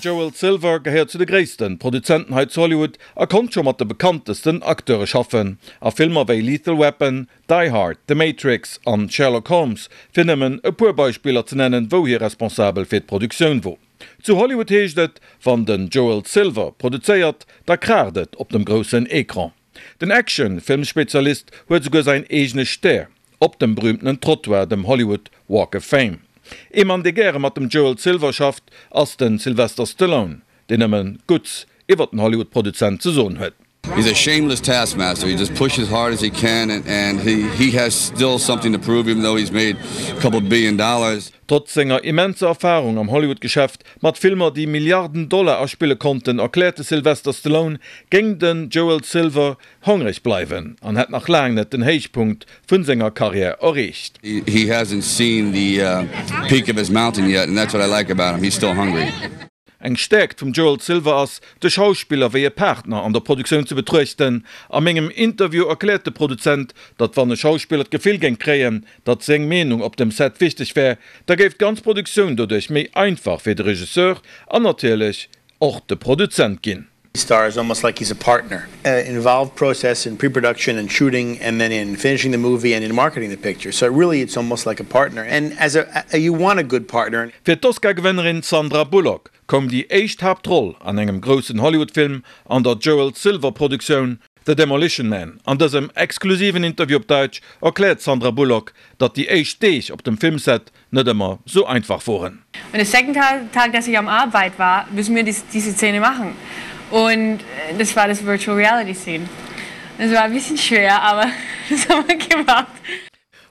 Joel Silver gehéiert zu de gréissten Produzenten hei zu Hollywood a konnt scho mat de bekanntesten Acteure schaffen a Filmer wéi Lethal Weapon, Die Hard, The Matrix an Sherlock Holmes, fir nëmmen e puer Beispiller ze nennen, wou hie responsabel fir d'Produktioun wor. Zu Hollywood heescht et, wann den Joel Silver produzéiert, da kraacht et op dem groussen Ecran. Den Action-Filmspezialist huet esouguer säin eegene Stär op dem berühmtenen Trottoir, dem Hollywood Walk of Fame. Ee Mann, dee gäre mat dem Joel Silver schafft, ass de Sylvester Stallone, deen nëmme Gutts iwwer den Hollywood-Produzent ze soen huet. He's a shameless taskmaster, he just pushes hard as he can and he has still something to prove even though he's made a couple billion dollars. Trotz senger immenser Erfarung am Hollywood-Geschäft, mat Filmer déi Milliarden Dollar aspille konnten, erkläert de Sylvester Stallone, géing den Joel Silver hongreg bleiwen an hätt nach laang net den Héichpunkt vun senger Karriär erreecht. He hasn't seen the peak of his mountain yet and that's what I like about him, he's still hungry. Eng Stäerkt vum Joel Silver ass, de Schauspiller wéi e Partner an der Produktioun ze betruechten. A mengem Interview erkläert de Produzent, datt wann e Schauspiller d'Gefill géing kréien, datt seng Meenung op dem Set wichteg wär, da géif d'ganz Produktioun doduerch méi einfach fir de Regisseur an natierlech och de Produzent ginn. Star is almost like he's a partner. Involved process in pre-production and shooting and then in finishing the movie and in marketing the picture. So really it's almost like a partner and as a you want a good partner. Fir d'Oscar-Gewënnerin Sandra Bullock koum déi éischt Haaptroll an engem groussen Hollywood-Film an der Joel Silver-Produktioun The Demolition Man. An dësem exklusiven Interview op Daitsch erkläert d'Sandra Bullock, datt déi éischt Deeg op dem Filmset net ëmmer sou einfach woren. Und der second Tag, dass ich am Arbeit war, müssen wir diese Szene machen. Und das war das Virtual Reality Scene. Das war ein bisschen schwer, aber das haben wir gemacht.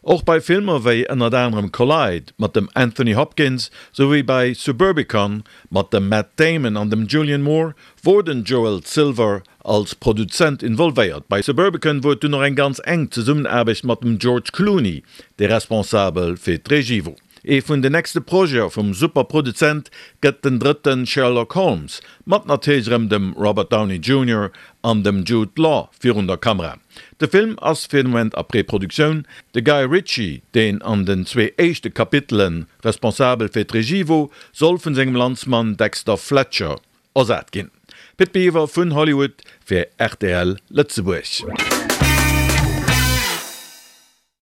Och bei Filmer wéi ënnert anerem Collide mat dem Anthony Hopkins souwéi bei Suburbicon mat dem Matt Damon an dem Julianne Moore wor den Joel Silver als Produzent involvéiert. Bei Suburbicon wor et dunn och eng ganz enk Zesummenaarbecht mat dem George Clooney, dee responsabel fir d'Regie wor. Ee vun den nächste Projete vum Super-Produzent gëtt den drëtte Sherlock Holmes, mat natierlech erëm dem Robert Downey Junior an dem Jude Law virun der Kamera. De Film ass fir de Moment a Preproduktioun. De Guy Ritchie, deen an den zwee éischte Kapitele responsabel fir d'Regie wor, soll vun sengem Landsmann Dexter Fletcher ersat ginn. Pit Biwer vun Hollywood fir rtl Lëtzebuerg.